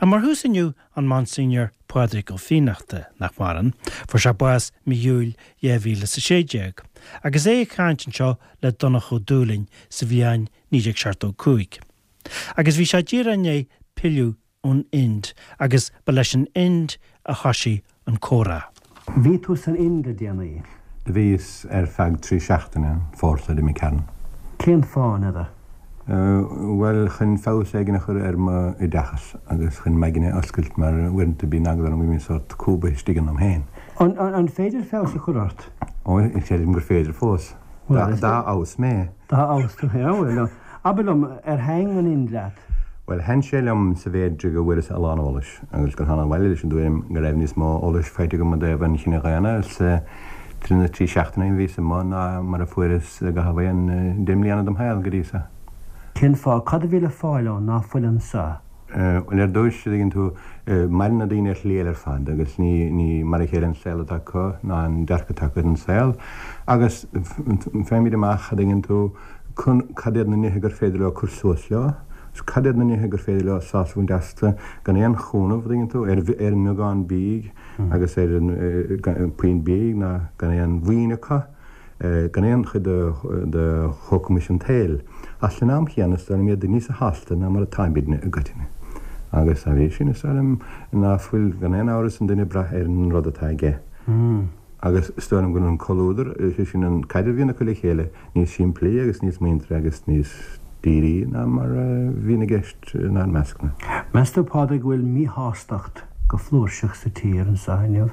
Ach mar thús inniu, an Monsignor Pádraig Ó Fiannachta, nach maireann, fuair sé bás mí Iúil 2016, agus é ag caint anseo le Donncha Ó Dúlaing sa bhliain 1975. Agus bhí sé díreach i ndiaidh pilleadh ón Ind agus ba leis an Ind a thoisigh an comhrá. Bhí tú san Ind le déanaí. Do bhíos ar feadh trí seachtaine, an fómhar seo d'imigh tharainn. Cén fáth, n'fheadar? Bhuel, chun feabhas éigin a chur ar m'oideachas agus chun m'aigne a oscailt mar uaireanta bíonn eagla orm go mbím sórt cúbaithe istigh ionam féin. An féidir feabhas a chur ort? Ó, creidim gur féidir fós. Dá fheabhas mé. Dá fheabhas tú féin, bhuel, abair liom, ar thaitn an Ind leat? Bhuel, thaitn sé liom sa mhéid go bhfuaireas a lán eolais agus gur thánag abhaile leis an dtuairim go raibh níos mó eolais faighte agam i dtaobh an chine dhaonna sa na trí seachtaine a bhíos amuigh ná mar a fuaireas i gcaitheamh aon deich mbliana dem shaol go dtí so. Cén fáth? Cad a bhí le fáil ann ná fuil anso? Bhuel, ar dtúis, a dtuigeann tú, maireann na daoine ar shlí eile ar fad agus ní, ní mar a chéile an saol atá acu ná an dearcadh atá acu ar an saol agus faighimid amach, a dtuigeann tú, cad iad na nithe gur féidir leo cur suas leo agus cad iad na nithe gur féidir leo sásamh a bhaint astu gan aon chúnamh, a dtuigeann tú, ar, ar an mbeagán bídh. agus ar an bpuinn bídh ná gan aon mhaoin acu, gan aon chuid de shócamais an tsaoil. Ach san am chéanna is dóigh liom iad níosa shásta ná mar atáimidne i gcoitinne. Agus dá bhrí sin is dóigh liom ná fuil gan aon amhras an duine ag brath ar an rud atá aige. Agus is dóigh liom go bhfuil an comhluadar, is é sin an caidreamh a bhíonn acu le chéile, níos simplí agus níos muinteartha agus níos dírí ná mar a bhíonn i gceist inár meascna. Meas tú, Pádraig, go bhfuil míshástacht go flúirseach sa tír anseo inniu?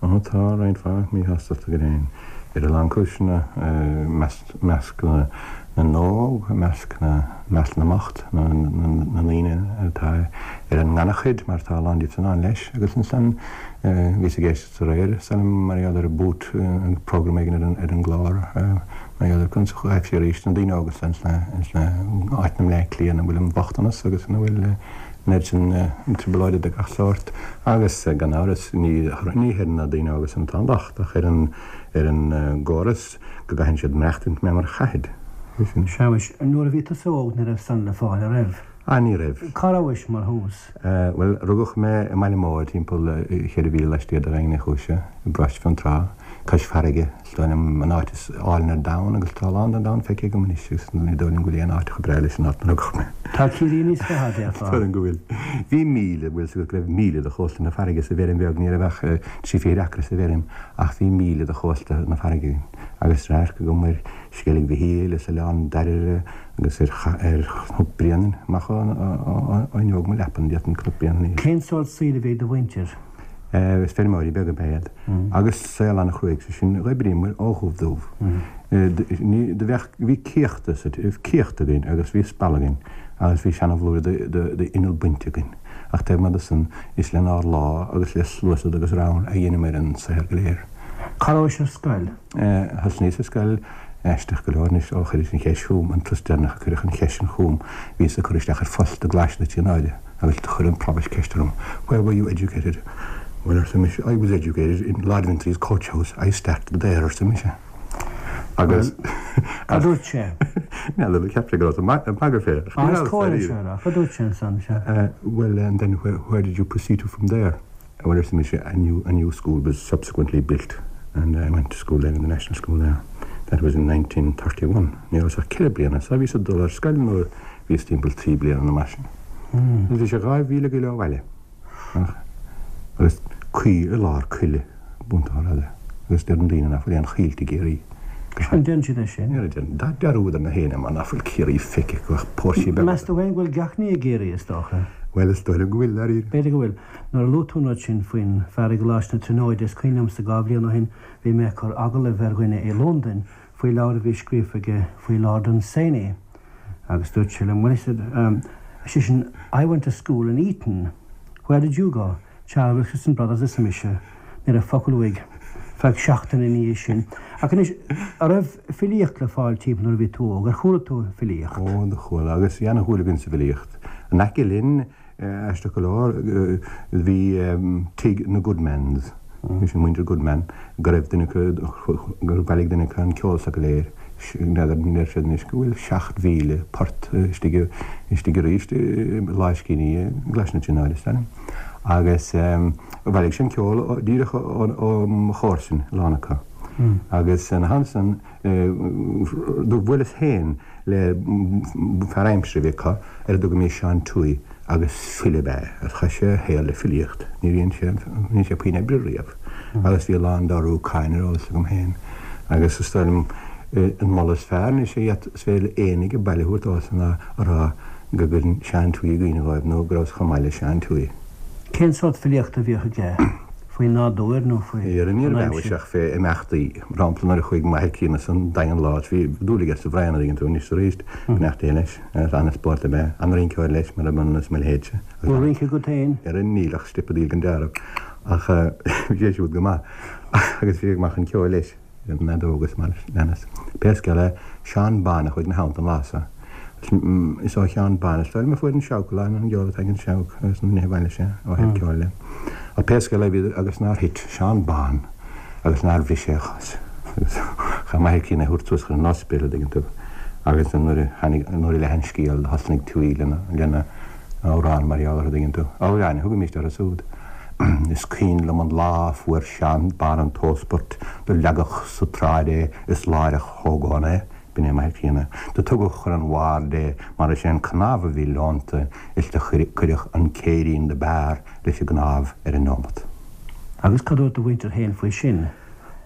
Ó, tá roinnt mhaith míshástachta go deimhin, ar a lán cúiseanna, i measc na n-óg, i measc na measc na mbocht, na ndaoine atá ar an ngannchuid, mar tá a lán díobh san ann leis, agus ansan bhíos ag éisteacht aréir, is dóigh liom, mar gheall ar Boot, program éigin ar an gclár, mar gheall ar conas a ghaibh sé arís na daoine óga sna áiteanna i mBleá Cliath ina bhfuil an bochtanas agus ina bhfuil an oiread sin trioblóide de gach sórt agus gan amhras ní ní ar na daoine óga san atá an locht ach ar an ar an gcóras go gcaitheann siad maireachtaint mé mar a chaithid. Sea, muis, nuair a bhí tusa óg ní raibh san le fáil, a raibh? Ah, ní raibh. Cá rabhais mar thús? Bhuel, rugadh mé i mBaile Móir, timpeall cheithre mhíle laistiar de Dhaingean Uí Chúise, i bparóiste Fionntrá, cois farraige. Is dóigh liom an áit is álainn ar domhan agus tá a lán den domhan feicthe agam anois agus ní dóigh liom go bhfuil aon áit chomh breá leis an áit 'na rugadh mé. Tá Ciarraí níos fearr, déarfá. Is dóigh liom go bhfuil. Bhí míle, bhfuil 's agat go raibh míle de chósta na farraige sa bhfeirm bheag, ní raibh ach trí fichid acra sa bhfeirm ach bhí míle de chósta na farraige againn agus radharc agam ar Sceilg Mhichíl is Oileán Dairbhre agus ar Chnoc Bréanainn amach ó fhuinneog mo leapan, d'fhéadfainn Cnoc Bréanainn a. Cén sórt saoil a bhí ag do mhuintir? Is feirmeoirí beaga ab ea iad agus saol an-chruaidh, sé sin, d'oibríomair ó dhubh dubh. Ní, do bheadh, bhí céachta sa, céacht againn agus bhí spalla againn agus bhí seana-bhlúire d'inneall bainte againn ach taobh amuigh de san is lenár lámha agus le sluasaid agus ramhar a dheineamair an saothar go léir. Cá rabhais ar scoil? Thosnaíos ar scoil aisteach go leor anois ó chuiris an cheist chugam, an turas deireanach a cuireadh an cheist sin chugam, bhíos ag cur isteach ar phost i gColáiste na Tríonóide agus do chuir an Provost ceist orm, Where were you educated? Well, arsa mise, I was educated in Lord Vintry's coach house, I started there, arsa mise. Agus. Cad dúirt sé? N'fheadar, cheap sé go rabhas ag magadh fé. Ach is cóir é seo a rá, cad dúirt sé ansan, sea? Well, and then where, where did you proceed to from there? Well, arsa mise, a new, a new school was subsequently built and I went to school then in the National School there. That was in 1931. Ní rabhas ach ceithre bliana, so bhíos ag dul ar scoil nuair a bhíos timpeall trí bliana nó mar sin. Agus bhí sé dhá mhíle go leith ó bhaile. Ach, agus coill i lár coille, buntáil eile. Agus deireann daoine nach bhfuil aon choillte i gCiarraí. An deireann siad é sin? Ní deireann. Dá dearúd ar na héinne mar nach bhfuil Ciarraí feicthe acu ach póirsí beaga. Meas tú féin go bhfuil gach ní i gCiarraí, is dócha? Bhuel, is dóigh liom go bhfuil, dáiríre. B'fhéidir go bhfuil. Nuair a luaigh tú an rud sin faoin fear i gColáiste na Tríonóide, is cuimhin liomsa dhá bhliain ó shin bhí mé ag cur agallaimh ar dhuine i Londain faoi leabhar a bhí scríofa aige faoi Lord Dunsany agus dúirt sé liom, well he said, ar seisean, I went to school in Eton, where did you go? Charles Wilkinson Brothers arsa mise. Ní raibh focal uaidh feadh seachtaine ina dhiaidh sin. Ach anois, an raibh filíocht le fáil timpeall nuair a bhí tú óg? Ar chuala tú filíocht? Ó, do chuala, agus bhí ana-dhúil againn sa bhfilíocht. In aice linn, Aisteach go leor, bhí tigh na Goodmans, bhí sin muintir Goodman, go raibh duine acu, gur bhailigh duine acu an ceol s'acu go léir. N'fheadar, deir siad anois go bhfuil 7,000 port istigh istigh arís i lámhscríbhinní i gColáiste na Tríonóide, is dóigh liom. Agus bhailigh sé an ceol díreach ó mo chomharsain, a lán acu. Agus ina theannta san, do bhuaileas féin le fear aimsire a bhí acu ar a dtugaimis Seán Tuohy agus file ab ea é agus chaith sé a shaol le filíocht. Níor dhein sé, níor dhein sé puinn oibre riamh agus bhí a lán dá rúcáin ar eolas agam féin agus is dóigh liom an moladh is fearr anois a is féidir le éinne age baile a thabhairt domhsa ná a rá go gcuireann Seán Tuohy i gcuimhne dhóibh nó go rabhas chomh maith le Seán Tuohy. Cén sórt filíochta a bhíodh aige? Faoin nádúr nó faoi Níor an aimsir? aimsir? ach fé imeachtaí. Mar shampla nuair a chuaigh m'athair críonna san Daingean lá is bhí dúil aige sa bhraon a dtuigeann tú anois is arís, beannacht Dé leis. An-spórt ab ea. An-rinceoir leis, murab ionann is mo leithéidse. Bhfuil rince agat féin? Ara níl ach steipeadaíl den dealramh. Ach bhí sé siúd go maith. Agus bhí sé go maith chun ceoil leis, an fheadóg agus mar a leanas. Pé scéal é, Seán Bán a chuaigh ina theannta an lá so. Is ó Sheán Bán is dóigh liom a fuair an seabhac a lán an gceol atá ag an seabhac agus na nithe a bhailigh sé ó thaobh ceoil de. Ach pé scéal é bhíodar agus nár thit Seán Bán agus nár bhris sé a chos. Agus chaith m'athair críonna é a thabhairt suas chun an ospidéil, a dtuigeann tú. Agus nuair a tháinig, nuair a leath an scéal do thosnaigh Tuohy lena, lena amhrán mar gheall air, a dtuigeann tú. Amhráin a thugaimíst orthu súd. Is cuimhin liom an lá a fuair Seán Bán an t-óspart, do leagadh sa tsráid é is láithreach thógadh ann é. B'in é m'athair críonna. Do tugadh chun an bhaird é mar is é an cnámh a bhí leonta is do cuireadh an céirín do b'fhearr leis an gcnámh ar an neomat. Agus cad dúirt do mhuintir féin faoi sin?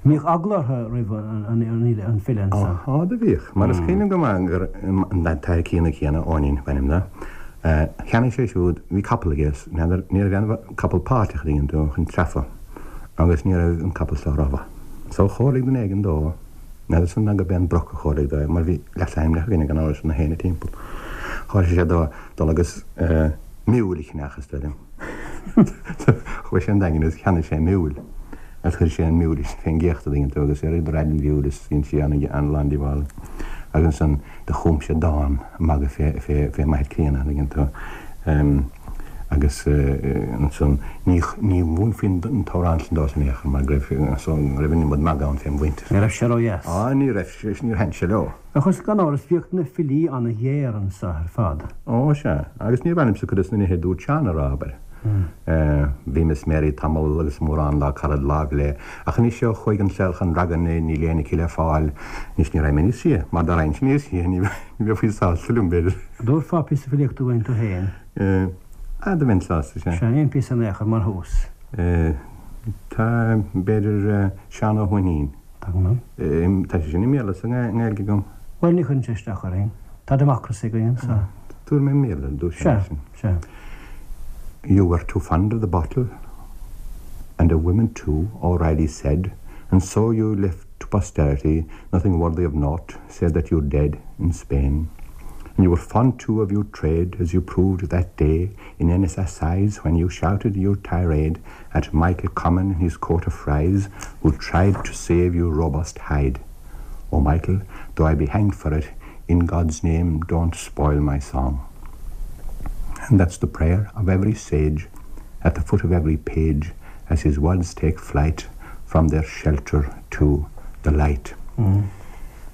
Mbíodh eagla orthu roimh an file ansan? Á, do bhíodh. Mar is cuimhin liom go maith gur an t-athair críonna céanna, Eoinín ab ainm dó, cheannaigh sé siúd, bhí capall aige is n'fheadar, ní raibh aon capall páirteach a dtuigeann tú chun treafa agus ní raibh an capall so rómhaith. So chomhairligh duine éigin dó, N'fheadar san ná gurb é an Broc a chomhairligh dó é, mar bhí leasainmneacha againne gan amhras ar na héinne timpeall. Chomhairligh sé dó dul agus miúil a cheannach, is dóigh liom. Chuaigh sé an Daingean agus cheannaigh sé miúil agus chuir sé an miúil fén gcéachta, a dtuigeann tú, agus ar raid an mhiúil is dhein sí an-lán díobhála. Agus ansan do chum sé dán magaidh fé, fé, fé m'athair críonna, a dtuigeann tú. Agus ansan ní, ní mhúinfí an t-amhrán san dósan in aon chor mar go raibh, so, go raibh an iomad magaidh ann fém mhuintir. Ní raibh sé ródheas. Á, ní raibh, níor thaitin sé leo. Ach is gan amhras bhíodh na filí an-ghéar anso ar fad. Ó, sea. Agus níor mhaith liomsa cuid de na nithe a dúirt Seán a rá, abair. Bhí Miss Mary tamall agus mórán dá carad láimh léi, ach anois ó chuaigh an saol chun ragairne níl éinne aici le fáil. Anois ní raghaidh mé níos sia, mar dá raghainnse níos sia ní bheifí sásta liom, b'fhéidir. Dtabharfá píosa filíochta dúinn tú féin? Ah, do bheinn sásta, sea. Sea, aon phíosa in aon chor mar thús. Tá, b'fhéidir, Seán Ó hUaithnín. Tá go maith. Tá sé sin i mBéarla is i nGaeilge agam. Bhuel, ní chuireann sé isteach orainn. Tá democracy againn anseo. Tabharfaidh mé i mBéarla ar dtús é sin. Sea, sea. You were too fond of the bottle, and of women too, O'Reilly said, and so you left to posterity nothing worthy of note, save that you're dead in Spain. And you were fond too of your trade, as you proved that day in Ennis Assize when you shouted your tirade at Michael Common in his coat of frieze, who tried to save your robust hide. Oh, Michael, though I be hanged for it, in God's name don't spoil my song. And that's the prayer of every sage at the foot of every page as his words take flight from their shelter to the light. Mm.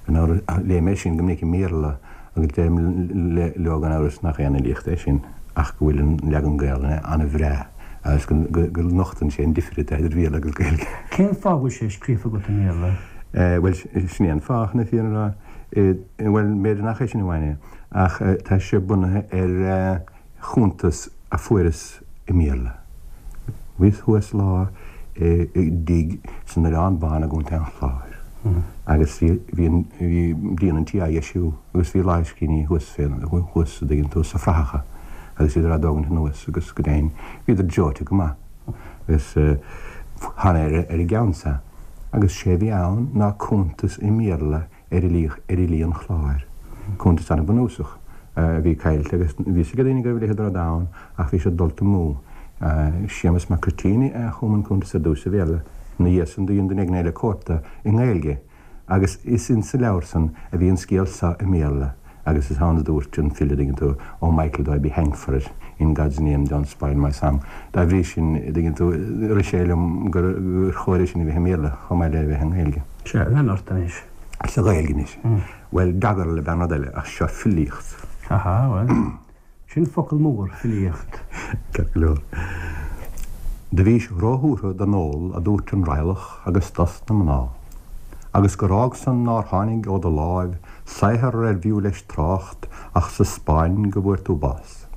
Léigh mé sin go minic i mBéarla agus deirim leo gan amhras nach aon fhilíocht é sin ach go bhfuil an leagan Gaelainne an-bhreá agus go nochtann sé an difir atá idir Bhéarla agus Gaeilge. Cén fáth a bhfuil sé scríofa agat i mBéarla? Bhuel, sin é an fáth, chun na fírinne a rá. Bhuel, b'fhéidir nach é sin amháin é, ach tá sé bunaithe ar chuntas a fuaireas i mBéarla. Bhíos thuas lá i dtigh san Oileán Bán i gContae an Chláir agus bhí bhí an bhí díon an tí á dheisiú agus bhí lámhscríbhinní thuas fé thuas a dtuigeann tú sa frathacha agus bhíodar á dtógaint anuas agus go deimhin bhíodar dreoite go maith agus thána ar ar an gceann sa agus sé a bhí ann ná cuntas i mBéarla ar fhilí, ar fhilí an Chláir. Cuntas an-bhunúsach a bhí caillte agus bhí fhios ag daoine go raibh a leithéid de rud ann ach bhí sé dulta amú. Séamus Mac Cruitín a chum an cuntas ar dtús sa Bhéarla. Ina dhiaidh san do dhein duine éigin eile cóip de i nGaeilge agus is insa leabhar san a bhí an scéal so i mBéarla agus is ann a dúirt an file, dtuigeann tú, Oh Michael though I be hanged for it, in God's name don't spoil my song. Dá bhrí sin, dtuigeann tú, rith sé liom gur chóir é sin a bheith i mBéarla chomh maith le bheith i nGaeilge. Sea, lean ort anois. Sa Ghaeilge anois. Bhuel, doggerel ab ea an rud eile, ach seo filíocht. Aha, bhuel, sin focal mór, filíocht. Ceart go leor. Do bhís róthuartha don ól a dúirt an raidhleach agus dos na mná, agus gur fhág san nár tháinig ó do láimh saothar ar bhfiú leis trácht ach sa Spáinn go bhfuair tú bás.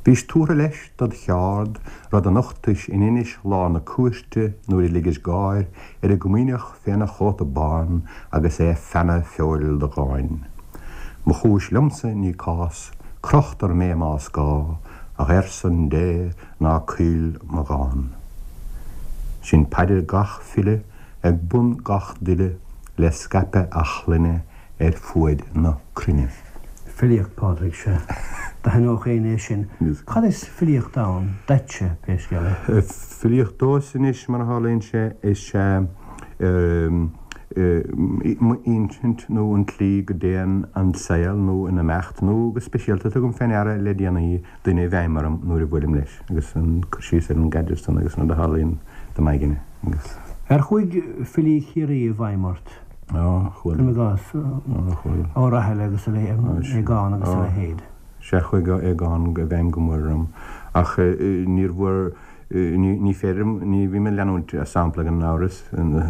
Bhís tuartha leis dod cheárd, rud a nochtais in Inis lá na cúirte nuair a ligis gáir ar an gComaoineach féna chóta bán agus é ag feannadh feoil do dháin. Mo chúis liomsa ní cás, crochtar mé más gá, ach ar son Dé ná caoil mo dhán. Sin paidir gach file ag bun gach duille le scaipeadh a chlainne ar fuaid na cruinne. Filíocht, Pádraig, sea. D'aithneodh éinne é sin. Cad is filíocht ann duitse, pé scéal é? Filíocht domhsa anois, mar a tharlaíonn sé, is ea m'insint nó an tslí go dtéann an saol nó an imeacht nó go speisialta tugaim fé ndeara le déanaí duine i bhfeidhm orm nuair a bhuailim leis agus an cur síos ar an gcaidreamh san agus an rud a tharlaíonn do m'aigne agus. Ar chuaigh filí Chiarraí i bhfeidhm ort? Á, chuaigh. Cuirim i gcás, Ó Rathaille agus a leithéid, Aogán agus a leithéid. Sea, chuaigh Aogán i bhfeidhm go mór orm ach níor mhór, ní féidir liom, ní bhím ag leanúint a sampla gan amhras,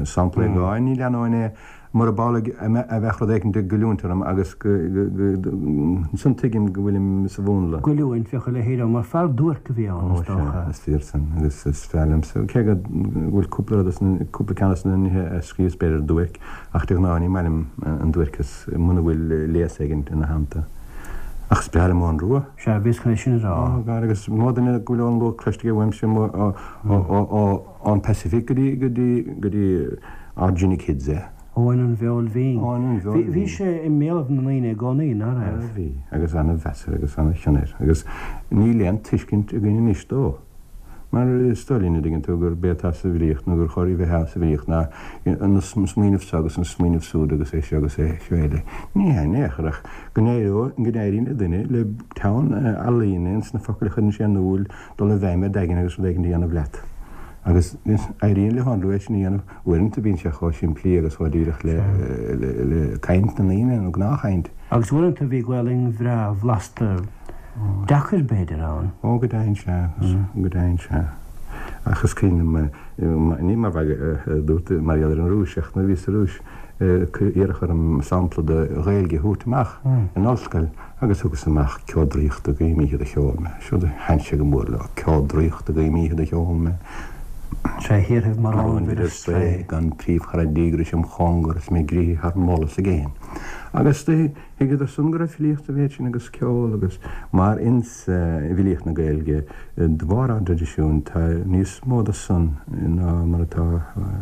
sampla Aogáin, ní leanóinn é murab amhlaidh a bheadh rud éicint ag goilliúint orm agus go, ansan tuigim go bhfuilim sa mhúnla. Goilliúint, bheadh a leithéid ann, mar fear duairc a bhí ann, is dócha. Ó sea, is fíor san agus is fearr liomsa, cé go bhfuil cúpla rud as na, cúpla ceann as na nithe a scríobhas b'fhéidir duairc, ach de ghnáth ní maith liom an duairceas muna bhfuil léas éigin ina theannta. Ach is breá liom Eoghan Rua. Sea, bhíos chun é sin a rá. Ó, gar, agus is mó duine go bhfuil Eoghan Rua cloiste aige uaimse amuigh ón Pacific go dtí, go dtí, go dtí Ordzhonikidze. Eoin an Bheoil Bhinn. Eoin an Bheoil Bhí, bhí sé i mbéalaibh na ndaoine i gcónaí, ná raibh? Bhí, agus ana-mheas air agus ana-chion air, agus níl aon tuiscint againn anois dó. Mar is dóigh linn, a dtuigeann tú, gurb é atá sa bhfilíocht, nó gur chóir a bheith sa bhfilíocht, ná an smaoineamh seo agus an smaoineamh súd agus é seo agus é seo eile. Ní hea in aon chor, ach go n-éiríonn le duine, le teann ealaíne ins na focail a chuireann sé in iúl, dul i bhfeidhm ar d'aigne agus rud éigin a dhéanamh leat. Agus éiríonn le hEoghan Rua é sin a dhéanamh. Uaireanta bíonn sé chomh simplí agus chomh díreach le caint na ndaoine, nó gnáthchaint. Agus uaireanta bhí Gaolainn bhreá bhlasta, deacair b'fhéidir, ann. Ó, go deimhin, sea, go deimhin, sea. Ach is cuimhin liom, ní mar mhagadh a dúirt mar gheall ar an Rúis, ach nuair a bhíos sa Rúis, iarradh orm sampla de Ghaeilge a thabhairt amach in ollscoil agus thugas amach Ceo draíochta guím oíche do cheol mé. Siúd a thaitin sé go mór leo, Ceo draíochta guím oíche do cheol mé. Tré thíorthaibh mar fhonnmhair ar strae, gan príomhchara díograis im chóngar is mé gríotha thar moll is i gcéin. Agus do thuigeadar san go raibh filíocht sa mhéid sin agus ceol agus mar ins bhfilíocht na Gaeilge de bharr ár dtraidisiúin tá níos mó de san ná mar atá,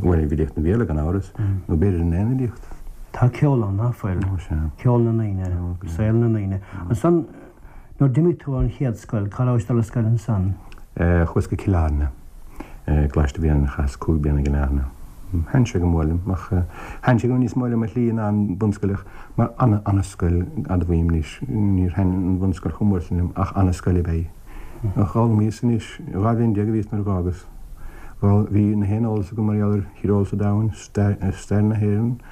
bhuel i bhfilíocht an Bhéarla gan amhras, nó b'fhéidir in aon fhilíocht. Tá ceol ann, ná fuil? Ó sea. Ceol na ndaoine, saol na ndaoine. Ansan nuair d'imigh tú ón chéad scoil, cá rabhais dul ar scoil ansan? Chuas go Cill Airne. Coláiste a bhí ann, chaitheas 5 bliana i gCill Airne. Thaitin sé go mór liom, ach thaitin sé go níos mó liom ar shlí ná an bhunscoil ach mar ana, ana-scoil, admhaím anois, níor thaitin an bhunscoil chomh mór sin liom ach ana-scoil ab ea í. Ach d'fhoghlaimíos anois, 12 bhliain a bhíos nuair a dh'fhágas. Bhí na haon eolas agam mar gheall ar thíreolas an domhain, stair na hÉireann,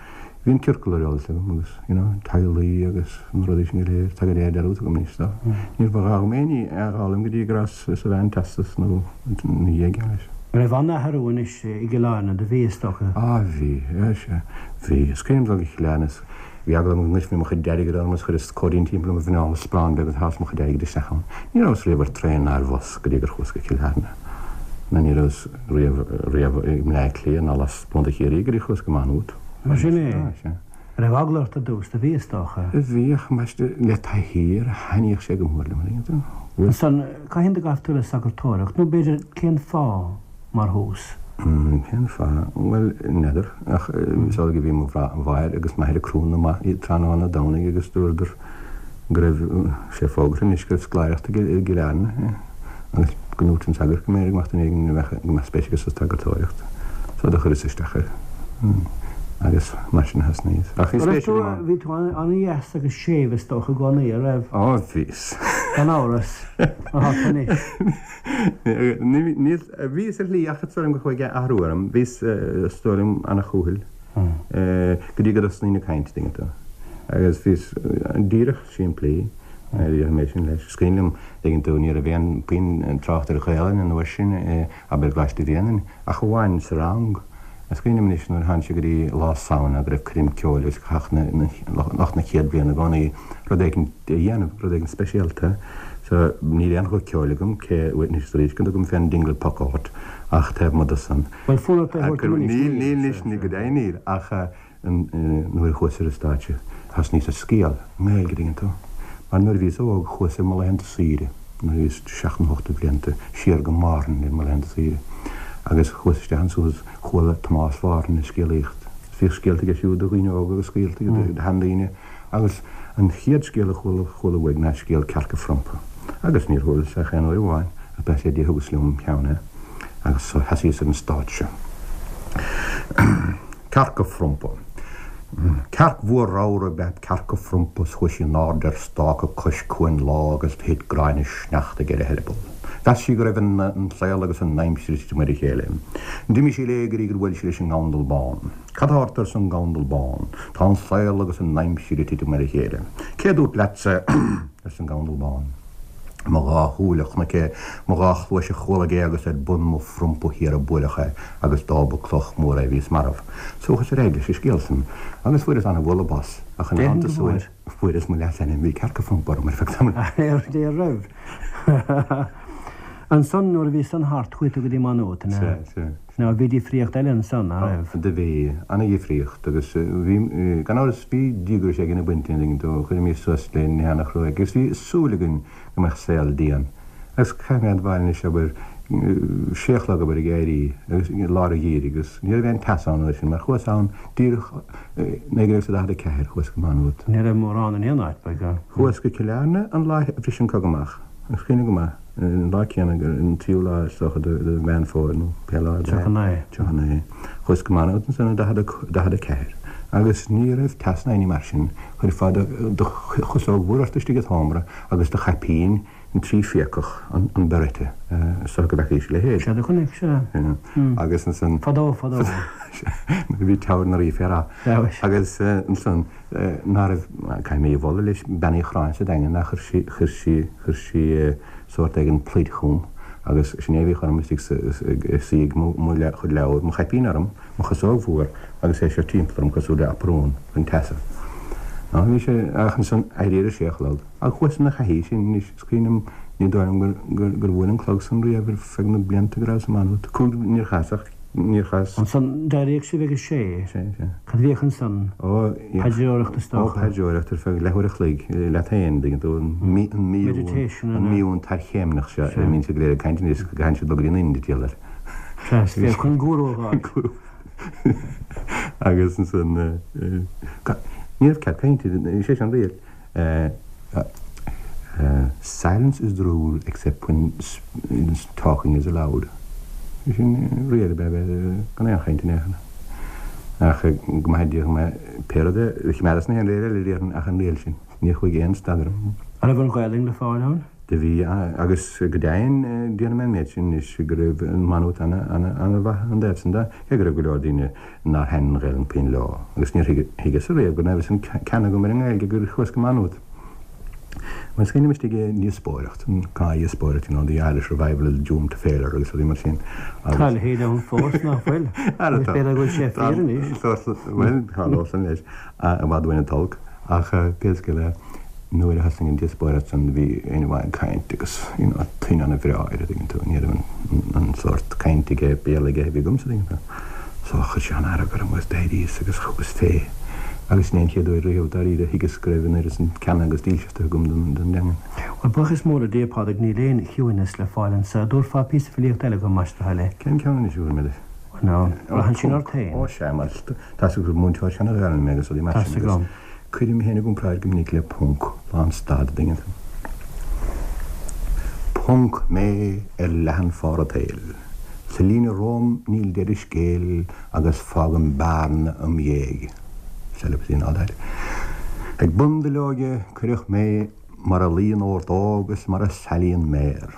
Bhí an ciorcal ar eolas agam agus, you know, teaghlaigh agus na rudaí sin go léir, tá go léir dearúdta agam anois so níor ba ghá dhom aon ní a fhoghlaim go dtí go rabhas sa mheán teastas nó ina dhiaidh leis. An raibh an-athrú anois i gCill Airne, do bhí, is dócha? Á bhí, sea, bhí. Is cuimhin liom dul go Cill Airne is bhí eagla orm go ngoidfí mo chuid airgid orm agus chuireas cóirín timpeall mo mhuineál is sparán beag agus shás mo chuid airgid isteach ann. Ní rabhas riamh ar traein ná ar bhus go dtí gur chuas go Cill Airne. Ná ní rabhas riamh, riamh i mBleá Cliath ná las gContae Chiarraí go dtí chuas go Maigh Nuad. Mar sin é. Á, sea. An raibh eagla ort ar dtús? Do bhí, is dócha. Bhí, ach ambaiste, le taithí air, thaitníodh sé go mór liom, an dtuigeann tú? Bhuel. Ansan, cathain do ghabh tú le sagartóireacht, nó b'fhéidir cén fáth, mar thús? Cén fáth? Bhuel, n'fheadar, ach is amhlaidh a bhí mo mháthair agus m'athair ag Crúna amach tráthnóna Domhnaigh agus dúradar go raibh sé fógartha anois go raibh scoláireacht i gCill Airne agus go ndúirt an sagart go mb'fhéidir go mbeadh duine éigin a bheadh, go mbeadh spéis aige sa tsagartóireacht. So do chuireas isteach air agus mar sin a thosnaíos. Ach bhí spéis agam ann. Bhí tú an-dheas agus séimh is dócha i gcónaí, a raibh? Ó, bhíos. Gan amhras, mar atá tú anois. Níl, bhíos ar shlí ach is dóigh liom gur chuaigh athrú orm. Bhíos, is dóigh liom, an-chúthail go dtí go dtosnaínn ag caint, tuigeann tú. Agus bhíos díreach simplí, déarfaidh mé sin leis. Is cuimhin liom, tuigeann tú, ní raibh aon puinn trácht ar Ghaelainn an uair sin, abair i gColáiste Bhréanainn, ach amháin sa rang. Is cuimhin liom anois nuair a tháinig sé go dtí lá Samhna go raibh coirm ceoil agus chaithfeadh lucht na chéad bhliana i gcónaí rud éigin a dhéanamh, rud éigin speisialta. So níl aon ghuth ceoil agam, cé anois is arís go dtugaim fén Dingle Puck ort ach taobh amuigh de san. Bhuel, fonn ort é a thabhairt dom anois, níl? Níl, níl anois, go deimhin níl, ach Nuair a chuas ar an stáitse thosnaíos ag scéal i nGaeilge, tuigeann tú. Mar nuair a bhíos óg chuas ar mo laethanta saoire, nuair a bhíos seacht nó ocht de bhlianta, siar go Márthain ar mo laethanta saoire. Agus chuas isteach ansan agus chuala Tomás Mhárthain ag scéalaíocht. Bhíodh scéalta aige siúd do dhaoine óga agus scéalta aige do sheandaoine. Agus an chéad scéal a chuala chuala uaidh ná scéal Cearca Phrompa. Agus níor chualas ach aon uair amháin, ach bail ó Dhia thugas liom im cheann é. Agus so sheasaíos ar an stáitse. Cearca Phrompa. Cearc mhór ramhar ab ea Cearca Phrompa 's chuaigh sí in airde ar stáca cois cuain lá agus do thit gráinne sneachtaidh ar a heireaball. Mheas sí go raibh an saol agus an aimsir ag titim ar a chéile. D'imigh sí léi go dtí gur bhuail sí leis an ngabhandal bán. Cad tá ort arsa an gabhandal bán. Tá an saol agus an aimsir ag titim ar a chéile. Cé dúirt leatsa arsa an gabhandal bán. Mo dhá shúil a chonaic é, mo dhá chluais a chualaidh é agus ar bun mo phrompa thiar a buaileadh é agus dá ba cloch mhór é bhíos marbh. So chuas ar aghaidh leis an scéal san agus fuaireas ana-bhualadh bos ach ina theannta san fuaireas mo leasainm, bhí Cearca Phrompa orm ar feadh tamaill. Ar raibh? Ansan nuair a bhí san thart chuaigh tú go dtí Maigh Nuad, an ea? Sea, sea. Now bhí difríocht eile ansan, ná raibh? Do bhí, ana-dhifríocht agus bhí, gan amhras, bhí díograis éigin ag baint linn, do chuirimis suas le nithe ana-chruaidh agus bhí súil againn go mbeadh saol dian. Agus caithfidh mé a admháil anois, abair, sé a chlog abair ag éirí agus i lár an gheimhridh agus ní raibh aon teas ann an uair sin mar chuas ann díreach 1944, chuas go Maigh Nuad. Ní raibh mórán in aon áit, by God. Chuas go Cill Airne an lá a bhris an cogadh amach, is cuimhin liom go maith. An lá céanna, an tríú lá is dócha de Mheán Fómhair nó pé lá ab ea. 39. Chuas go Maigh Nuad ansan i 44 agus ní raibh teas ná aon ní mar sin. Chuirfeá do chosóg mhór ort istigh i seomra agus do chaipín an tríphiacach, an beret, is dócha go bhfeacaís a leithéid. Sea, do chonaic, sea. Agus ansan. Fadó, fadó. Nuair a bhí Teamhair na Rí fé rath. Agus ansan. ná raibh, caithfidh mé í a mholadh leis, Bean Uí Chorráin sa Daingean, ach chuir sí, chuir sí, chuir sí sórt éigin pluid chugam agus sin é a bhíodh orm istigh sa, ag suí ag mo, mo chuid leabhar, mo chaipín orm, mo chosóg mhór agus é seo timpeall orm cosúil le aprún chun teasa. Ná bhí sé, ach ansan éirí ar a sé a chlog. Ach chuas ina thaithí sin anois, is cuimhin liom, ní dóigh liom gur, gur, gur bhuail an clog san riamh ar feadh na blianta go rabhas i Maigh Nuad. Cúig, níor chas ach. Níor chas. Ansan, d'éiríodh sibh ag a sé. Sé, sé. Cad a bhíodh ansan? Ó, Paidreoireacht is dócha. Ó, paidreoireacht ar feadh leathuair a chloig, leat féin, dtuigeann tú, an Meditation, an míún tarchéimneach seo ar a mbíonn siad go léir ag caint anois, go gcaitheann siad dul go dtí an Ind, diabhal air. Sea, is féach chun gúrú a fháil. Gúrú. Agus ansan, ní raibh cead cainte, sé sin an riail. Silence is the rule except when talking is allowed. Sin riail ab ea bheith gan aon chaint in aon chor. Ach go maithe Dia dhom é, pé rud é, choimeádas na haon riail eile déarfainn ach an riail sin. Níor chuaigh aon stad orm. An raibh an Ghaelainn le fáil ann? Do bhí, agus go deimhin déarfaidh mé an méid sin anois go raibh Maigh Nuad ana-mhaith ón dtaobh san de, cé go raibh go leor daoine nár thaitin an Ghaelainn puinn leo, agus níor thuigeas-sa riamh go raibh an ceann agam ar an nGaeilge gur chuas go Maigh Nuad. Bhuel, is cuimhin liom istigh i ndíospóireacht, an gnáthdhíospóireacht, you know, the Irish revival is doomed to failure agus rudaí mar sin. Tá a leithéid ann fós, nach bhfuil? Agus b'fhéidir go bhfuil sé fíor anois. Bhuel, tharlódh san leis, i bhfad uainn an t-olc. Ach pé scéal é, nuair a thosnaigh an díospóireacht san, bhí éinne amháin ag caint agus, you know, tuin ana-bhreá air, a dtuigeann tú, ní raibh an sórt cainte aige, Béarla aige a bhí agamsa, a dtuigeann tú. So chuir sé an-fhearg orm agus d'éiríos agus chugas fé agus sin é an chéad uair riamh dáiríre a thuigeas go raibh an oiread san ceana agus dílseachta agam don dteangain. Bhuel, buíochas mór le Dia, Pádraig, níl aon chiúineas le fáil anso. Dtabharfá píosa filíochta eile dhom, más do thoil é? Cén ceann anois a bhfuil mé leis? Nó, braitheann sin ort féin. Ó sea, mar tá 's agat gur múinteoir seana-Ghaelainne mé agus rudaí mar sin agus cuirim mé féin i gcomparáid go minic le ponc, lánstad, an dtuigeann tú. Ponc mé ar leathan phár an tsaoil. Sa líne romham níl deireadh scéil agus fágaim bearna im dhiaidh. Celibacy and all that. Ag bun duilleoige cuireadh mé mar a luíonn ordóg is mar a salaíonn méar.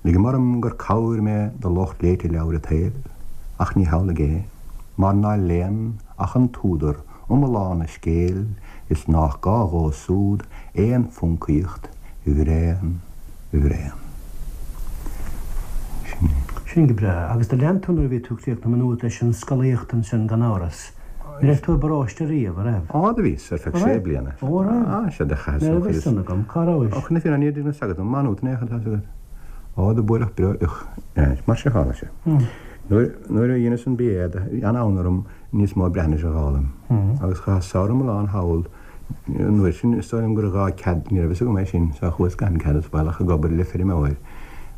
Ligim orm gur cabhair mé do lucht léite leabhair an tsaoil, ach ní hamhlaidh é, mar ná léann ach an t-údar. iomlán a scéil is nách gá dhó súd aon phoncaíocht bhréan bhréan. Sin é. Sin go breá. Agus do lean tú nuair a bhí tú críochnaithe i Maigh Nuad leis an scolaíocht ansin gan amhras. Ní raibh tú i bparóiste riamh, a raibh? Á, do bhíos, ar feadh sé bliana. Ó, a raibh? Á, sea, do chaitheas an chuid is. Ní raibh fhios agam. Cá rabhais? Ó, chun na fírinne, ní raibh fhios agat, Má Nuad in aon chor, tá fhios agat. Á, do buaileadh breoiteacht. Mar seo tharla sé. Nuair a dheineas an BA, bhí an-fhonn orm níos mó Breatnaise a dh'fhoghlaim. Agus chaitheas samhradh iomlán thall. An uair sin, is dóigh liom gur ghá cead, ní raibh fhios agam é sin, so chuas gan cead is baolach ag obair le feirmeoir.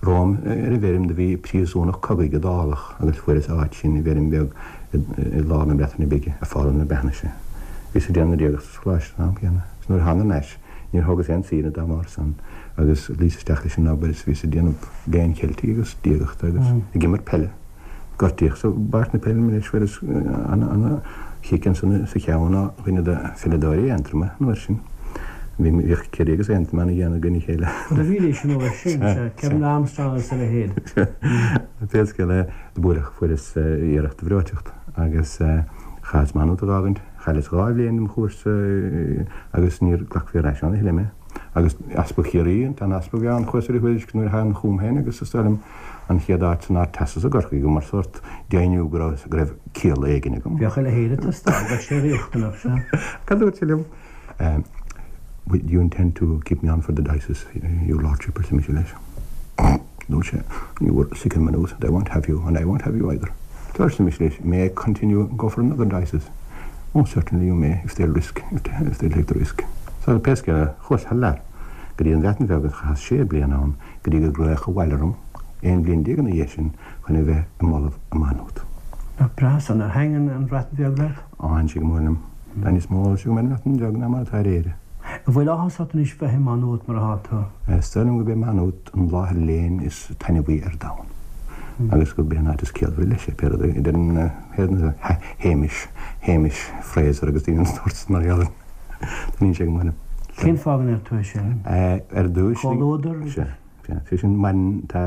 Romham ar an bhfeirm do bhí príosúnach cogaidh Iodálach agus fuaireas áit sin i bhfeirm bheag i lár na Breataine Bige ag foghlaim na Breatnaise. Bhíos ag déanamh na diagachta sa choláiste an am céanna. Is nuair a thánag thar n-ais, níor thógas aon saoire dá mbarr san agus luíos isteach leis an obair is bhíos ag déanamh léinn Cheiltigh agus diagachta agus ag imirt peile. Gortaíodh sa bpáirc na peile mé anois fuaireas ana-chic ansan sa cheann ó dhuine de pheileadóirí Aontroma an uair sin. Bhíodh Ciarraí agus Aontroim ana-dhian i gcoinne a chéile. Do bhídís an uair sin, sea, Kevin Armstrong agus a leithéid. Pé scéal é, do buaileadh, fuaireas iarracht de bhreoiteacht agus chaitheas Maigh Nuad a dh'fhágaint. Chailleas 2 bhliain dem chúrsa agus níor glacfaí ar ais ann a thuilleadh mé. Agus Easpag Chiarraí, an t-easpag a bhí ann, chuas ar a thuairisc nuair a thagann chugam féin agus is dóigh liom an chéad áit san Ardteastas i gCorcaigh mar sórt deimhniú go raibh go raibh ciall éigin agam. Bheadh a leithéid ag teastáil, bheadh sé riachtanach, sea. Cad a dúirt sé liom? Do you intend to keep me on for the diocese, your lordship, arsa mise leis. Dúirt sé, You were sick in Maynooth and I won't have you and I won't have you either. So arsa mise leis, May I continue and go for another diocese? Oh, certainly you may, if they'll risk, if they'll take the risk. So pé scéal é, chuas thar lear go dtí an Bhreatain Bheag agus chaitheas sé bliana ann go dtí gur glaodh abhaile orm, 11 bliain ina dhiaidh sin, chun a bheith i m'ollamh i Maigh Nuad. Nach breá san. Ar thaitin an Bhreatain Bheag leat? Á, thaitin sí go mór liom. Tá níos mó eolais agam ar an mBreatain Bheag ná mar atá ar Éire. An bhfuil áthas ort anois bheith i Maigh Nuad mar atá tú? Is dóigh liom gurb é Maigh Nuad an láthair léinn is taitneamhaí ar domhan agus gurb é an áit is ciallmhaire leis é, pé rud é, a deireann Hamish, Hamish Fraser agus daoine den sórt sin mar gheall air. Taitníonn sé go mór liom. Cén fáth go ndeir tú é sin? Ar dtús. Comhluadar? Sea. Sé sin, maireann, tá,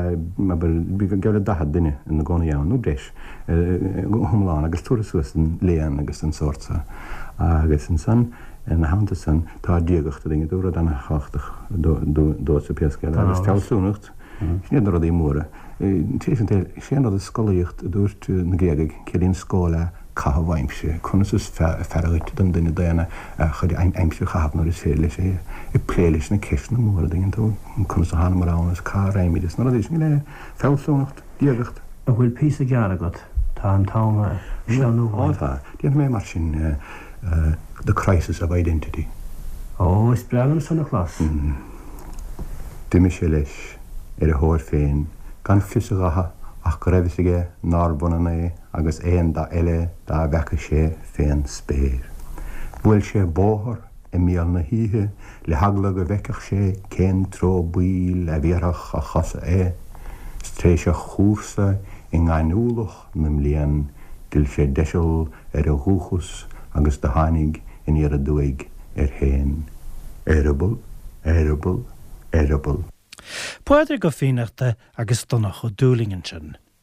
abair, geall le 40 duine ina gcónaí ann, nó breis, go hiomlán, agus tabhartha suas don léann agus don sórt so. Agus ansan, ina theannta san, tá diagacht, a dtuigeann tú, rud ana-thábhachtach domhsa pé scéal é, agus fealsúnacht, sin iad na rudaí móra. Tar éis an tsaoil, sé an rud is scolaíocht a dúirt na Gréagaigh, ciallaíonn schola caitheamh aimsire, conas is fearr dhuit don duine daonna a chuid aimsire a chaitheamh nuair is féidir leis é, ag plé leis na ceisteanna móra, a dtuigeann tú, conas a thánamar ann is cá raghaimid is na rudaí sin go léir, fealsúnacht, diagacht. An bhfuil píosa gearr agat? Tá an t-am ag sleamhnú uainn. Ó tá. Déanfaidh mé mar sin, The Crisis of Identity. Ó, is breá liom san a chlos. D'imigh sé leis ar a thóir féin gan fios a dhatha ach go raibh fhios aige nárbh ionann é agus aon dath eile dá bhfeaca sé fén spéir. Bhuail sé bóthar i mbéal na hoíche le heagla go bhfeicfeadh sé cén treo baoil a bhéarfadh a chosa é, 's tar éis a chúrsa i ngaineamhlach na mblian d'fhill sé deiseal ar a dhúchas agus do tháinig aniar aduaidh air féin. Eireaball, eireaball, eireaball. Pádraig Ó Fiannachta agus Donncha Ó Dúlaing ansin.